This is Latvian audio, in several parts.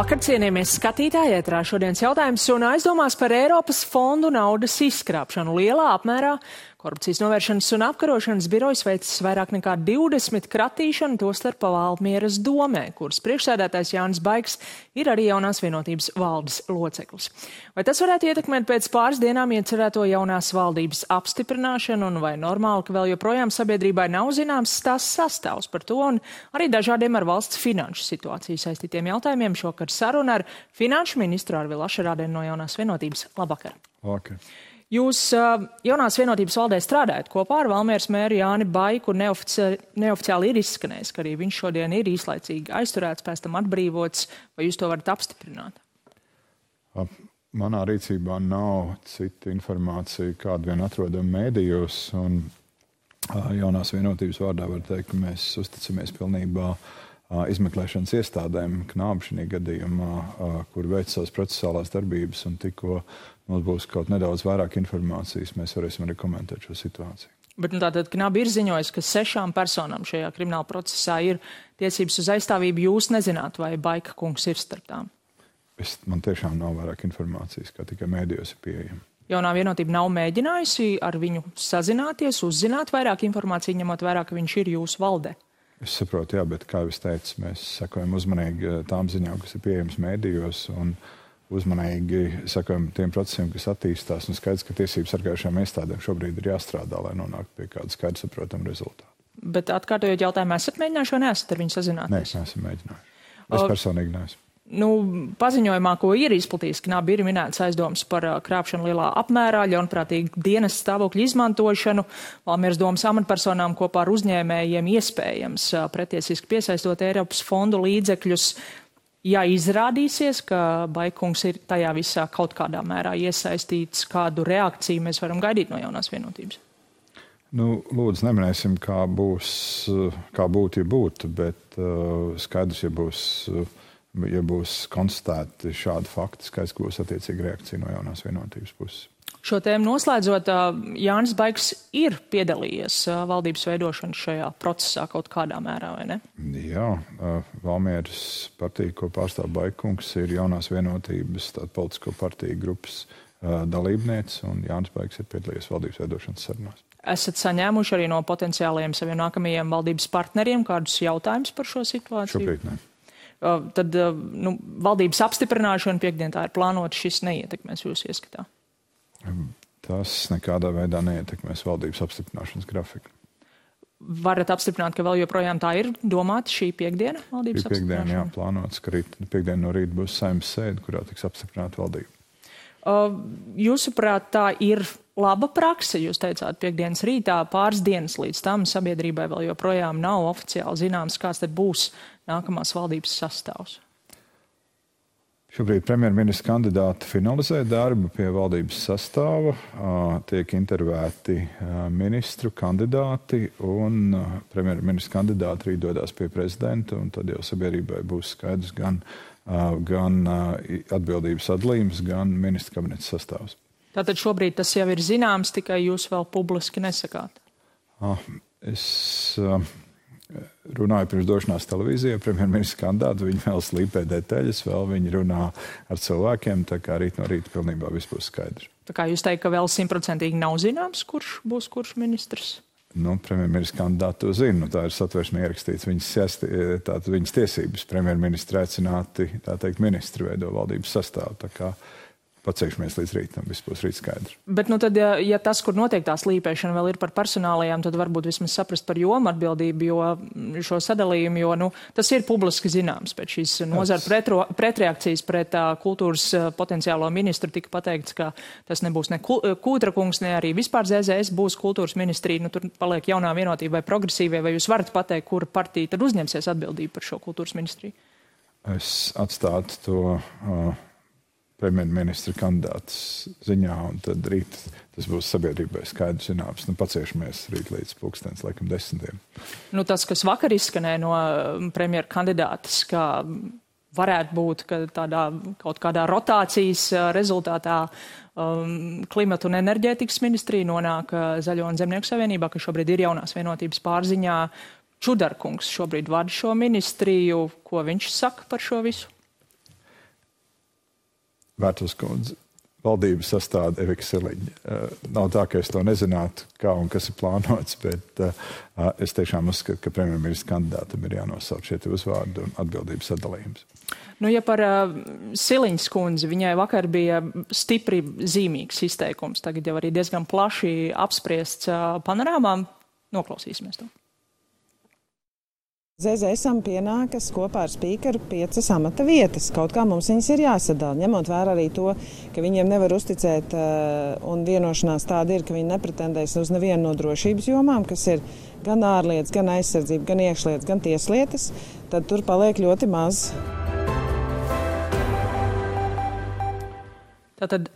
Labvakar, cienījamies skatītāji, ētrā šodienas jautājums un aizdomās par Eiropas fondu naudas izskrāpšanu lielā apmērā. Korupcijas novēršanas un apkarošanas birojas veicis vairāk nekā 20 kratīšanu, tostarp Valmieras domē, kuras priekšsēdētājs Jānis Baigs ir arī Jaunās vienotības valdes loceklis. Vai tas varētu ietekmēt pēc pāris dienām iecerēto jaunās valdības apstiprināšanu, un vai normāli, ka vēl joprojām sabiedrībai nav zināms tās sastāvs par to, un arī dažādiem ar valsts finanšu situāciju saistītiem jautājumiem šokar saruna ar finanšu ministru Arvilu Ašerādeni no Jaunās vienotības. Labvakar! Labvakar! Jūs Jaunās vienotības valdē strādājat kopā ar Valmieras mēru Jāni Baiku, un neoficiāli ir izskanējis, ka arī viņš šodien ir īslaicīgi aizturēts, pēc tam atbrīvots. Vai jūs to varat apstiprināt? Manā rīcībā nav cita informācija, kādu vien atrodam mēdījos, un Jaunās vienotības vārdā var teikt, ka mēs uzticamies pilnībā izmeklēšanas iestādēm, Knāba šajā gadījumā, kur veic savas procesālās darbības, un tikko mums būs kaut nedaudz vairāk informācijas, mēs varēsim arī komentēt šo situāciju. Bet tātad Knāba ir ziņojis, ka 6 personām šajā krimināla procesā ir tiesības uz aizstāvību. Jūs nezināt, vai Baika kungs ir starp tām? Man tiešām nav vairāk informācijas, kā tikai mēdījos ir pieejama. Jaunā vienotība nav mēģinājusi ar viņu sazināties, uzzināt vairāk informāciju, ņemot vērā, ka viņš ir jūsu valdē? Es saprotu, jā, bet, kā jau es teicu, mēs sekojam uzmanīgi tām ziņām, kas ir pieejams mēdījos, un uzmanīgi sekojam tiem procesiem, kas attīstās, un skaidrs, ka tiesību sargājušajām iestādēm šobrīd ir jāstrādā, lai nonāktu pie kāda skaidra saprotama rezultāta. Bet atkārtojot jautājumu, esat mēģinājuši vai neesat ar viņu sazināties? Nē, es neesmu mēģinājuši. Es personīgi neesmu. Paziņojumā, ko ir izplatījis Knāba, ir minēts aizdomas par krāpšanu lielā apmērā, ļaunprātīgu dienas stāvokļu izmantošanu, Valmieras domas amatpersonām kopā ar uzņēmējiem iespējams pretiesiski piesaistot Eiropas fondu līdzekļus. Ja izrādīsies, ka Baikungs ir tajā visā kaut kādā mērā iesaistīts, kādu reakciju mēs varam gaidīt no Jaunās vienotības? Lūdzu, neminēsim, kā būtu, ja būtu, bet skaidrs, ja būs konstatēti šādi fakti, skaidrs, ka būs attiecīga reakcija no Jaunās vienotības puses. Šo tēmu noslēdzot, Jānis Baigs ir piedalījies valdības veidošanas šajā procesā kaut kādā mērā, vai ne? Jā, Valmieras partija, ko pārstāv Baikungs, ir Jaunās vienotības politisko partiju grupas dalībniece, un Jānis Baigs ir piedalījies valdības veidošanas sarunās. Esat saņēmuši arī no potenciālajiem saviem nākamajiem valdības partneriem kādus jautājumus par šo situāciju? Šobrīd ne. Tad valdības apstiprināšana piekdien tā ir plānota, šis neietekmēs jūsu ieskatā? Tas nekādā veidā neietekmēs valdības apstiprināšanas grafiku. Varat apstiprināt, ka vēl joprojām tā ir domāta šī piekdiena valdības apstiprināšana? Piekdiena, jā, plānots, ka piekdien no rīta būs Saeimas sēde, kurā tiks apstiprināta valdība. Jūsuprāt, tā ir laba prakse, jūs teicāt, piekdienas rītā, pāris dienas līdz tam sabiedrībai vēl joprojām nav oficiāli zināms, kāds tad būs nākamās valdības sastāvs? Šobrīd premjerministra kandidāti finalizē darbu pie valdības sastāva, tiek intervēti ministru kandidāti, un premjerministra kandidāti arī dodas pie prezidenta, un tad jau sabiedrībai būs skaidrs gan atbildības sadalījums, gan ministra kabineta sastāvs. Tātad šobrīd tas jau ir zināms, tikai jūs vēl publiski nesakāt? Es runāju pirms došanās televīzijā, premjerministra kandidāti, viņi vēl slīpē detaļas, vēl viņi runā ar cilvēkiem, tā kā rīt no rīta pilnībā viss būs skaidrs. Tā kā jūs teikt, ka vēl 100% nav zināms, kurš būs kurš ministrs? Premjerministra kandidāti to zina, tā ir satversmē ierakstīts viņas tiesības. Premjerministra aicināti, tā teikt, ministri veido valdības sastāvu, tā kā paceikšamies līdz rītam, viss būs rīt skaidrs. Bet tad, ja tas, kur notiek tā slīpēšana, vēl ir par personālajām, tad varbūt vismaz saprast par jomu atbildību, jo šo sadalījumu, jo tas ir publiski zināms. Pēc šīs nozara pretreakcijas pret kultūras potenciālo ministru tika pateikts, ka tas nebūs ne Kūtra kungs, ne arī vispār ZZS būs kultūras ministrija. Tur paliek Jaunā vienotība vai progresīvie, vai jūs varat pateikt, kura partija tad uzņemsies atbildību par šo kultūras ministriju? Es atstātu to premjerministra kandidāts ziņā, un tad rīt tas būs sabiedrībai skaidrs zināms. Paciešamies rīt līdz 10:00. Tas, kas vakar izskanēja no premjera kandidātas, ka varētu būt, ka kaut kādā rotācijas rezultātā klimata un enerģētikas ministrija nonāk Zaļo un Zemnieku savienībā, ka šobrīd ir Jaunās vienotības pārziņā. Čudarkungs šobrīd vada šo ministriju. Ko viņš saka par šo visu? Vērtuvas kundze, valdības sastāda Evika Siliņa. Nav tā, ka es to nezinātu, kā un kas ir plānots, bet es tiešām uzskatu, ka premjerministra kandidātam ir jānosauc šie uzvārdi un atbildības sadalījums. Nu, ja par Siliņas kundzi, viņai vakar bija stipri zīmīgs izteikums, tagad jau arī diezgan plaši apspriests panorāmām. Noklausīsimies to. ZZSam pienākas kopā ar spīkeru 5 amata vietas. Kaut kā mums viņas ir jāsadala, ņemot vērā arī to, ka viņiem nevar uzticēt, un vienošanās tāda ir, ka viņi nepretendēs uz nevienu no drošības jomām, kas ir gan ārlietas, gan aizsardzība, gan iekšlietas, gan tieslietas, tad tur paliek ļoti maz. Tātad,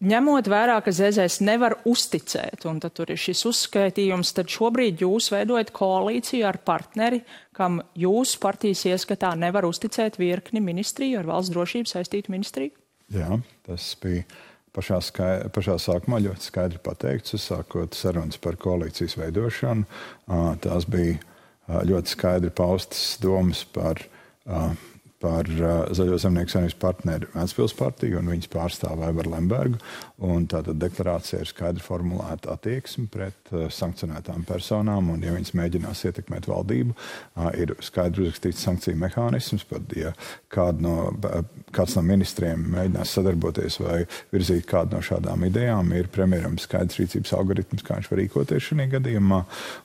ņemot vērā, ka ZZS nevar uzticēt, un tad tur ir šis uzskaitījums, tad šobrīd jūs veidojat koalīciju ar partneri, kam jūsu partijas ieskatā nevar uzticēt virkni ministriju ar valsts drošību saistītu ministriju? Jā, tas bija pašā sākumā ļoti skaidri pateikts, uzsākot sarunas par koalīcijas veidošanu. Tās bija ļoti skaidri paustas domas par Zaļo zemnieku savienības partneri Ventspils partiju un viņas pārstāvu Aivaru Lembergu. Un tātad deklarācija ir skaidri formulēta attieksme pret sankcionētām personām, un ja viņas mēģinās ietekmēt valdību, ir skaidri uzrakstīts sankciju mehānisms, pat ja kāds no ministriem mēģinās sadarboties vai virzīt kādu no šādām idejām, ir premjeram skaidrs rīcības algoritms, kā viņš var rīkoties šajā gadījumā,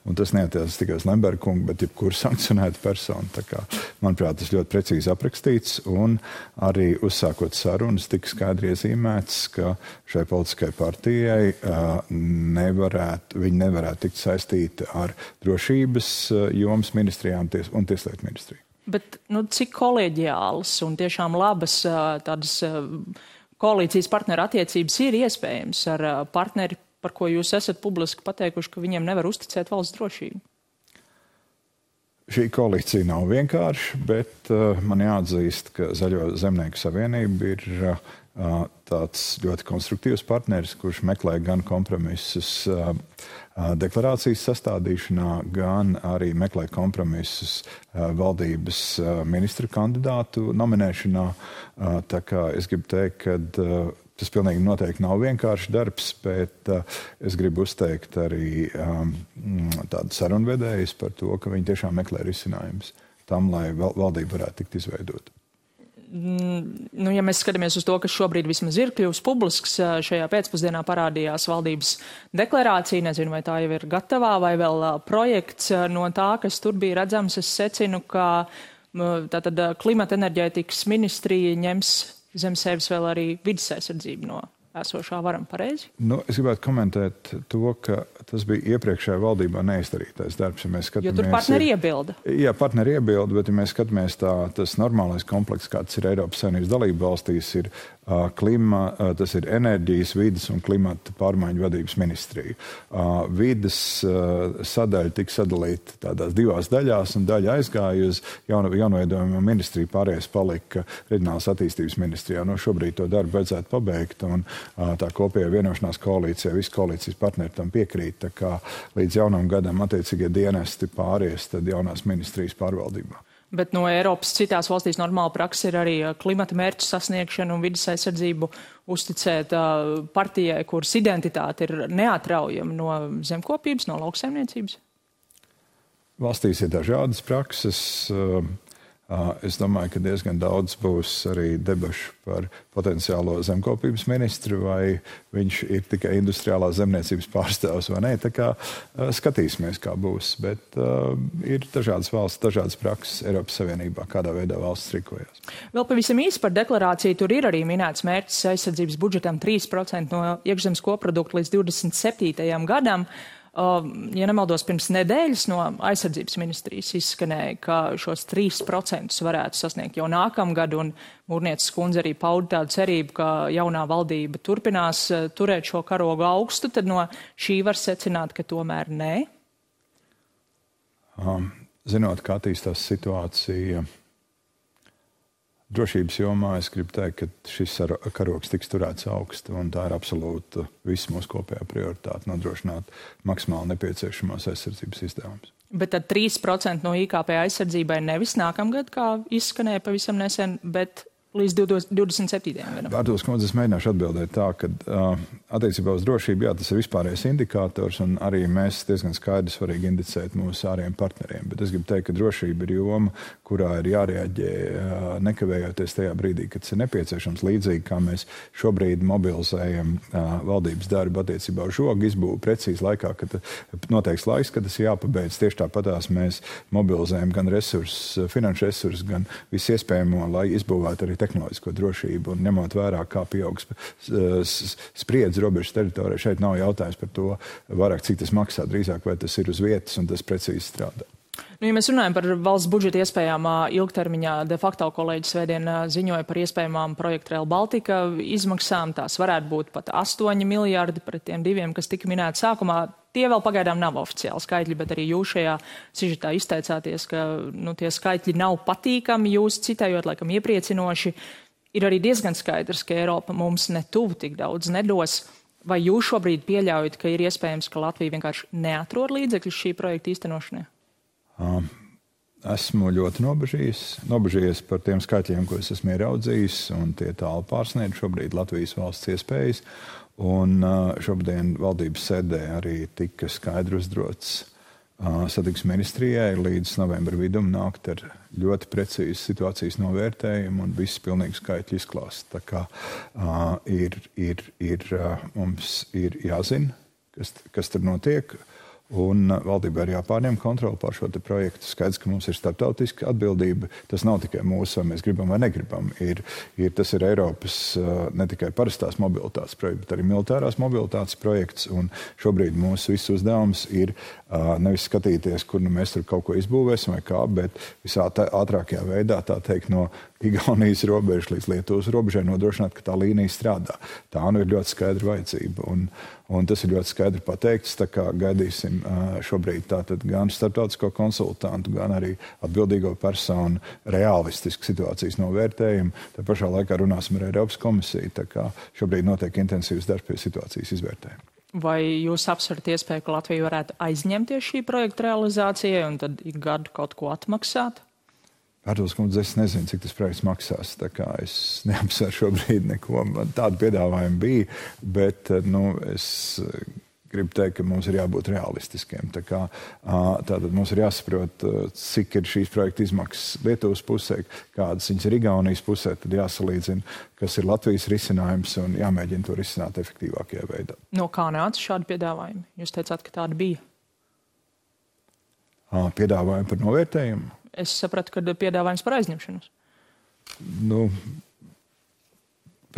un tas neatiecas tikai uz Lembergu kungu, bet jebkuru sankcionētu personu. Tā kā, manuprāt, tas ļoti precīzi aprakstīts, un arī uzsākot sarunas tika skaidri iezīmēts, ka šai politiskai partijai viņi nevarētu tikt saistīti ar drošības jomas ministrijām un tieslietu ministriju. Bet cik kolēģiālas un tiešām labas tādas koalīcijas partneru attiecības ir iespējams ar partneri, par ko jūs esat publiski pateikuši, ka viņiem nevar uzticēt valsts drošību? Šī koalīcija nav vienkārša, bet man jāatzīst, ka Zaļo zemnieku savienība ir tāds ļoti konstruktīvs partneris, kurš meklē gan kompromisus deklarācijas sastādīšanā, gan arī meklē kompromisus valdības ministru kandidātu nominēšanā. Tā kā es gribu teikt, ka tas pilnīgi noteikti nav vienkāršs darbs, bet es gribu uzteikt arī tādu sarunvedējus par to, ka viņi tiešām meklē risinājumus tam, lai valdība varētu tikt izveidota. Ja mēs skatāmies uz to, kas šobrīd vismaz ir kļuvis publisks, šajā pēcpusdienā parādījās valdības deklarācija, nezinu, vai tā jau ir gatavā, vai vēl projekts no tā, kas tur bija redzams. Es secinu, ka tātad klimata enerģētikas ministrija ņems zem sevis vēl arī vides aizsardzību no esošā varam, pareizi? Es gribētu komentēt to, ka tas bija iepriekšējā valdībā neizdarītais darbs. Jo tur partneri iebilda. Jā, partneri iebilda, bet ja mēs skatāmies tas normālais komplekss, kāds ir Eiropas Savienības dalību valstīs, ir tas ir enerģijas, vides un klimata pārmaiņu vadības ministrija. Vides sadaļa tika sadalīta tādās 2 daļās, un daļa aizgāja uz jaunoveidojamo ministriju, pārējais palika reģionālās attīstības ministrijā. Šobrīd to darbu vajadzētu pabeigt, un tā kopējā vienošanās koalīcijā, visi koalīcijas partneri tam piekrīt, tā kā līdz jaunam gadam attiecīgie dienesti pāries tad jaunās ministrijas pārvaldībā. Bet no Eiropas citās valstīs normāla praksa ir arī klimata mērķu sasniegšana un vides aizsardzību uzticēt partijai, kuras identitāte ir neatraujama no zemkopības, no lauksaimniecības? Valstīs ir dažādas prakses. Es domāju, ka diezgan daudz būs arī debašu par potenciālo zemkopības ministru, vai viņš ir tikai industriālā zemniecības pārstāvs vai nē. Tā kā skatīsimies, kā būs. Bet ir dažādas valsts, dažādas prakses Eiropas Savienībā, kādā veidā valsts rīkojas. Vēl pavisam īsi par deklarāciju. Tur ir arī minēts mērķis aizsardzības budžetam 3% no iekšzemes koprodukta līdz 27. gadam. Ja nemaldos, pirms nedēļas no aizsardzības ministrijas izskanēja, ka šos 3% varētu sasniegt jau nākamgad, un Mūrnieces kundze arī pauda tādu cerību, ka jaunā valdība turpinās turēt šo karogu augstu, tad no šī var secināt, ka tomēr nē? Zinot, kā attīstās situācija drošības jomā, es gribu teikt, ka šis karogs tiks turēts augstu, un tā ir absolūta visu mūsu kopējā prioritāte nodrošināt maksimāli nepieciešamās aizsardzības izdevumus. Bet tad 3% no IKP aizsardzībai nevis nākamgad, kā izskanēja pavisam nesen, bet līdz 27. gadam. Vārdos, kundze, es mēģināšu atbildēt tā, ka attiecībā uz drošību, jā, tas ir vispārējais indikators, un arī mēs diezgan skaidri svarīgi indicēt mūsu ārējiem partneriem. Bet es gribu teikt, ka drošība ir joma, kurā ir jārēģē nekavējoties tajā brīdī, kad tas ir nepieciešams. Līdzīgi kā mēs šobrīd mobilizējam valdības darbu attiecībā uz žogu izbūvi precīzi laikā, kad noteikts laiks, kad tas jāpabeidz. Tieši tāpatās mēs mobilizējam gan resursus, finanšu resursus, gan visu iespējamo, lai izbūvētu arī tehnoloģisko drošību, un ņemot vērā, kā pieaugs spriedzi robežas teritorijā. Šeit nav jautājums par to vairāk, cik tas maksā, drīzāk vai tas ir uz vietas un tas precīzi strādā. Ja mēs runājam par valsts budžeta iespējām ilgtermiņā, de facto kolēģis svētdien ziņoja par iespējamām projektu Rail Baltica izmaksām. Tās varētu būt pat 8 miljardi pret tiem 2, kas tika minēti sākumā. Tie vēl pagaidām nav oficiāli skaitļi, bet arī jūs šajā sižetā izteicāties, ka tie skaitļi nav patīkami, jūs citējot, laikam iepriecinoši. Ir arī diezgan skaidrs, ka Eiropa mums netuvu tik daudz nedos. Vai jūs šobrīd pieļaujat, ka ir iespējams, ka Latvija vienkārši neatrod līdzekļus šī projekta īstenošanai? Esmu ļoti nobežījies par tiem skaitļiem, ko es esmu ieraudzījis, un tie tālu pārsniedz šobrīd Latvijas valsts iespējas. Un šobrīd valdības sēdē arī tika skaidri uzdrots satiksmes ministrijai līdz novembra vidum nākt ar ļoti precīzu situācijas novērtējumu un visu pilnīgu skaitļu izklāstu. Tā kā mums ir jāzina, kas tur notiek. Un valdībai ir jāpārņem kontroli pār šo projektu. Skaidrs, ka mums ir starptautiska atbildība. Tas nav tikai mūsu, vai mēs gribam vai negribam. Tas ir Eiropas ne tikai parastās mobilitātes projekts, bet arī militārās mobilitātes projekts. Un šobrīd mūsu viss uzdevums ir nevis skatīties, kur mēs tur kaut ko izbūvēsim vai kā, bet visā ātrākajā veidā, tā teikt, no Igaunijas robežas līdz Lietuvas robežai nodrošināt, ka tā līnija strādā. Tā ir ļoti skaidra vajadzība. Un tas ir ļoti skaidri pateikts, tā kā gaidīsim šobrīd tātad gan starptautisko konsultantu, gan arī atbildīgo personu realistisku situācijas novērtējumu. Tā pašā laikā runāsim ar Eiropas komisiju, tā kā šobrīd notiek intensīvs darbs pie situācijas izvērtējuma. Vai jūs apsverat iespēju, ka Latvija varētu aizņemties šī projekta realizācijai un tad ik gadu kaut ko atmaksāt? Vārdos, kundze, es nezinu, cik tas projekts maksās, tā kā es neapsveru šobrīd neko. Man tādu piedāvājumu bija, bet es gribu teikt, ka mums ir jābūt realistiskiem. Tātad mums ir jāsaprot, cik ir šīs projekta izmaksas Lietuvas pusē, kādas viņas ir Igaunijas pusē, tad jāsalīdzina, kas ir Latvijas risinājums un jāmēģina to risināt efektīvākajā veidā. No kā nāca šādi piedāvājumi? Jūs teicāt, ka tāda bija. Piedāvājumi par novērtējumu? Es sapratu, ka piedāvājums par aizņemšanos.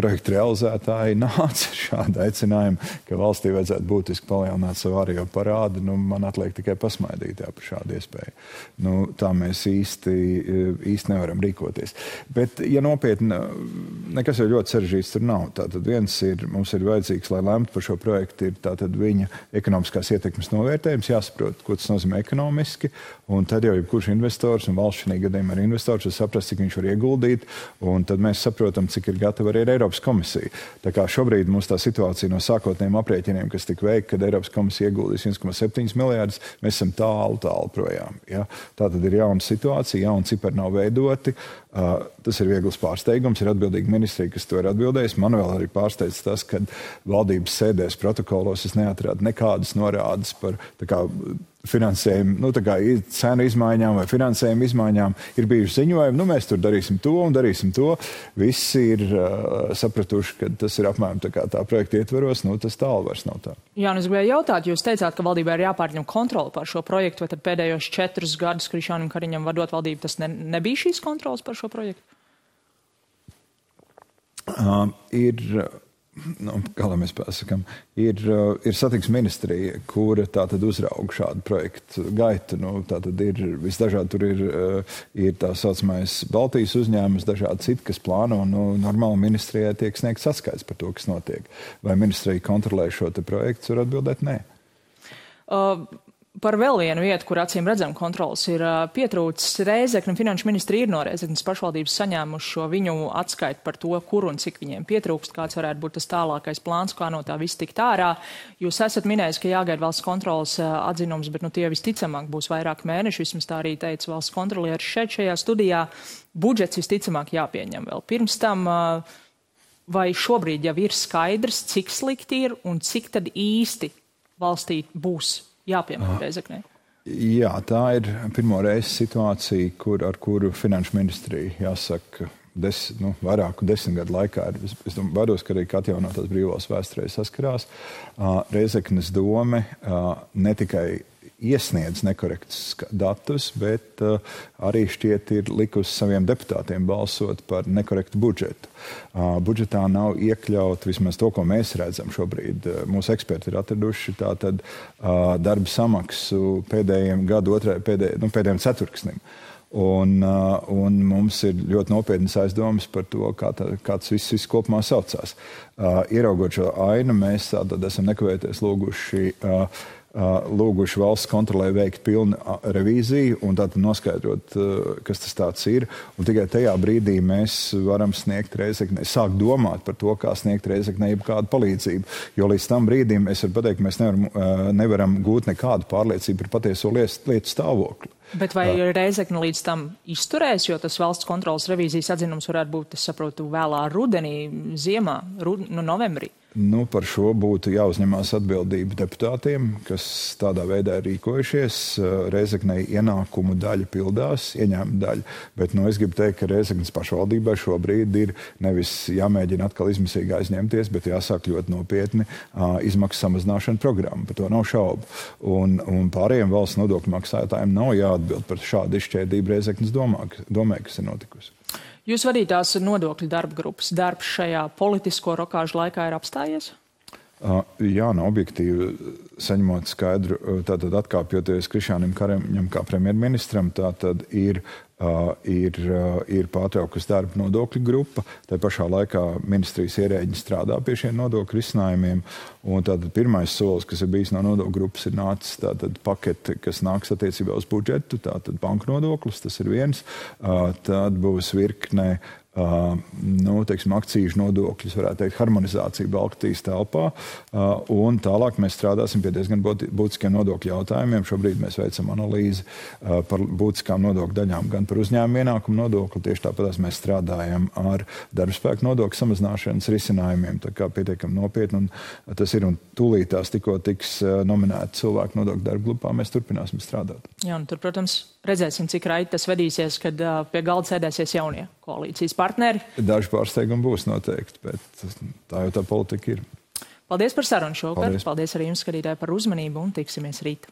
Projekta realizētāji nāca ar šādu aicinājumu, ka valstī vajadzētu būtiski palielināt savu ārējo parādu. Man atliek tikai pasmaidīt par šādu iespēju. Tā mēs īsti nevaram rīkoties. Bet, ja nopietni, nekas jau ļoti sarežģīts tur nav. Tātad mums ir vajadzīgs, lai lemtu par šo projektu, ir tātad viņa ekonomiskās ietekmes novērtējums, jāsaprot, ko tas nozīmē ekonomiski, un tad jau jebkurš investors, un valsts šajā gadījumā ir investors, var saprast, cik viņš var ieguldīt, un tad mēs saprotam, cik ir gatava arī Eiropas komisija. Tā kā šobrīd mums tā situācija no sākotnējiem aprēķiniem, kas tika veikti, kad Eiropas komisija ieguldīs 1,7 miljārdus, mēs esam tālu projām. Ja? Tā tad ir jauna situācija, jauni cipari nav veidoti. Tas ir viegls pārsteigums, ir atbildīga ministrija, kas to ir atbildējis. Man vēl arī pārsteidz tas, ka valdības sēdēs protokolos es neatradu nekādas norādes par finansējumu, cenu izmaiņām vai finansējumu izmaiņām. Ir bijuši ziņojumi, mēs tur darīsim to un darīsim to. Visi ir sapratuši, ka tas ir apmēram tā projekta ietveros, tas tālu vairs nav tā. Jā, es gribēju jautāt, jūs teicāt, ka valdībā ir jāpārņem kontroli pār šo projektu, vai tad pēdējos 4 gadus Krišjānam Kariņam vadot valdību, tas nebija šīs kontrolas par šo projektu? Kā lai mēs pasakām, ir satiksmes ministrija, kura tātad uzrauga šādu projektu gaitu. Tātad ir visdažādi, tur ir tā saucamais Baltijas uzņēmums, dažādi citi, kas plāno, normāli ministrijai tiek sniegts atskaits par to, kas notiek. Vai ministrija kontrolē šo projektu, var atbildēt nē. Par vēl vienu vietu, kur acīm redzam kontrols, ir pietrūcis Rēzekne. Finanšu ministri ir no Rēzeknes pašvaldības saņēmuši šo viņu atskaitu par to, kur un cik viņiem pietrūkst, kāds varētu būt tas tālākais plāns, kā no tā viss tikt ārā. Jūs esat minējis, ka jāgaida valsts kontrolas atzinums, bet tie visticamāk būs vairāk mēneši, vismaz tā arī teica valsts kontrolieris šajā studijā. Budžets visticamāk jāpieņem vēl pirms tam. Vai šobrīd jau ir skaidrs, cik slikti ir un cik tad īsti valstī būs jāpiemēr Rēzeknē? Jā, tā ir pirmo reizi situācija, ar kuru finanšu ministrija, jāsaka, vairāku 10 gadu laikā ir, es baidos, ka arī atjaunotās brīvvalsts vēsturē saskarās. Rēzeknes dome ne tikai iesniedz nekorektus datus, bet arī šķiet ir likusi saviem deputātiem balsot par nekorektu budžetu. Budžetā nav iekļaut vismaz to, ko mēs redzam šobrīd. Mūsu eksperti ir atraduši tātad darba samaksu pēdējiem pēdējiem ceturksnim. Un mums ir ļoti nopietnas aizdomas par to, kā tas viss kopumā saucās. Ieraugot šo ainu, mēs tātad esam nekavēties lūguši valsts kontrolē veikt pilnu revīziju un tātad noskaidrot, kas tas tāds ir. Un tikai tajā brīdī mēs varam sniegt Rēzeknei, sākt domāt par to, kā sniegt Rēzeknei kādu palīdzību. Jo līdz tam brīdim es varu pateikt, ka mēs nevaram gūt nekādu pārliecību par patieso lietu stāvokli. Bet vai Rēzekne līdz tam izturēs, jo tas valsts kontrolas revīzijas atzinums varētu būt, es saprotu, vēlā rudenī, ziemā, novembrī? Par šo būtu jāuzņemās atbildība deputātiem, kas tādā veidā ir rīkojušies. Rēzeknei ienākumu daļa pildās, ieņēmuma daļa, bet es gribu teikt, ka Rēzeknes pašvaldībai šobrīd ir nevis jāmēģina atkal izmisīgi aizņemties, bet jāsāk ļoti nopietni izmaksu samazināšana programma, par to nav šaubu. Un pārējiem valsts nodokļu maksātājiem nav jāatbild par šādu izšķērdību Rēzeknes domē, kas ir notikusi. Jūs vadītās nodokļu darba grupas darbs šajā politisko rokāžu laikā ir apstājies? Jā, objektīvi saņemot skaidru, tātad atkāpjoties Krišjānim Kariņam kā premjerministram, tātad ir pārtraukusi darba nodokļu grupa. Tā pašā laikā ministrijas ierēģi strādā pie šiem nodokļu risinājumiem. Un tātad pirmais solis, kas ir bijis no nodokļu grupas, ir nācis tātad pakete, kas nāks attiecībā uz budžetu, tātad banku nodoklis, tas ir viens. Tad būs virkne akcīžu nodokļus, varētu teikt, harmonizācija Baltijas telpā. Un tālāk mēs strādāsim pie diezgan būtiskiem nodokļu jautājumiem. Šobrīd mēs veicam analīzi par būtiskām nodokļu daļām, gan par uzņēmumu ienākumu nodokli. Tieši tāpat mēs strādājam ar darbspēku nodokļu samazināšanas risinājumiem. Tā kā pietiekam nopietni. Un tas ir un tūlīt tās tikko tiks nominēti cilvēku nodokļu darba grupā. Mēs turpināsim strādāt. Jā, un tur, protams, redzēsim, cik raiti tas vedīsies, kad pie galda sēdēsies jaunie koalīcijas partneri. Daži pārsteigumi būs noteikti, bet tā jau tā politika ir. Paldies par sarunu šovakar. Paldies arī jums, skatītāji, par uzmanību un tiksimies rīt.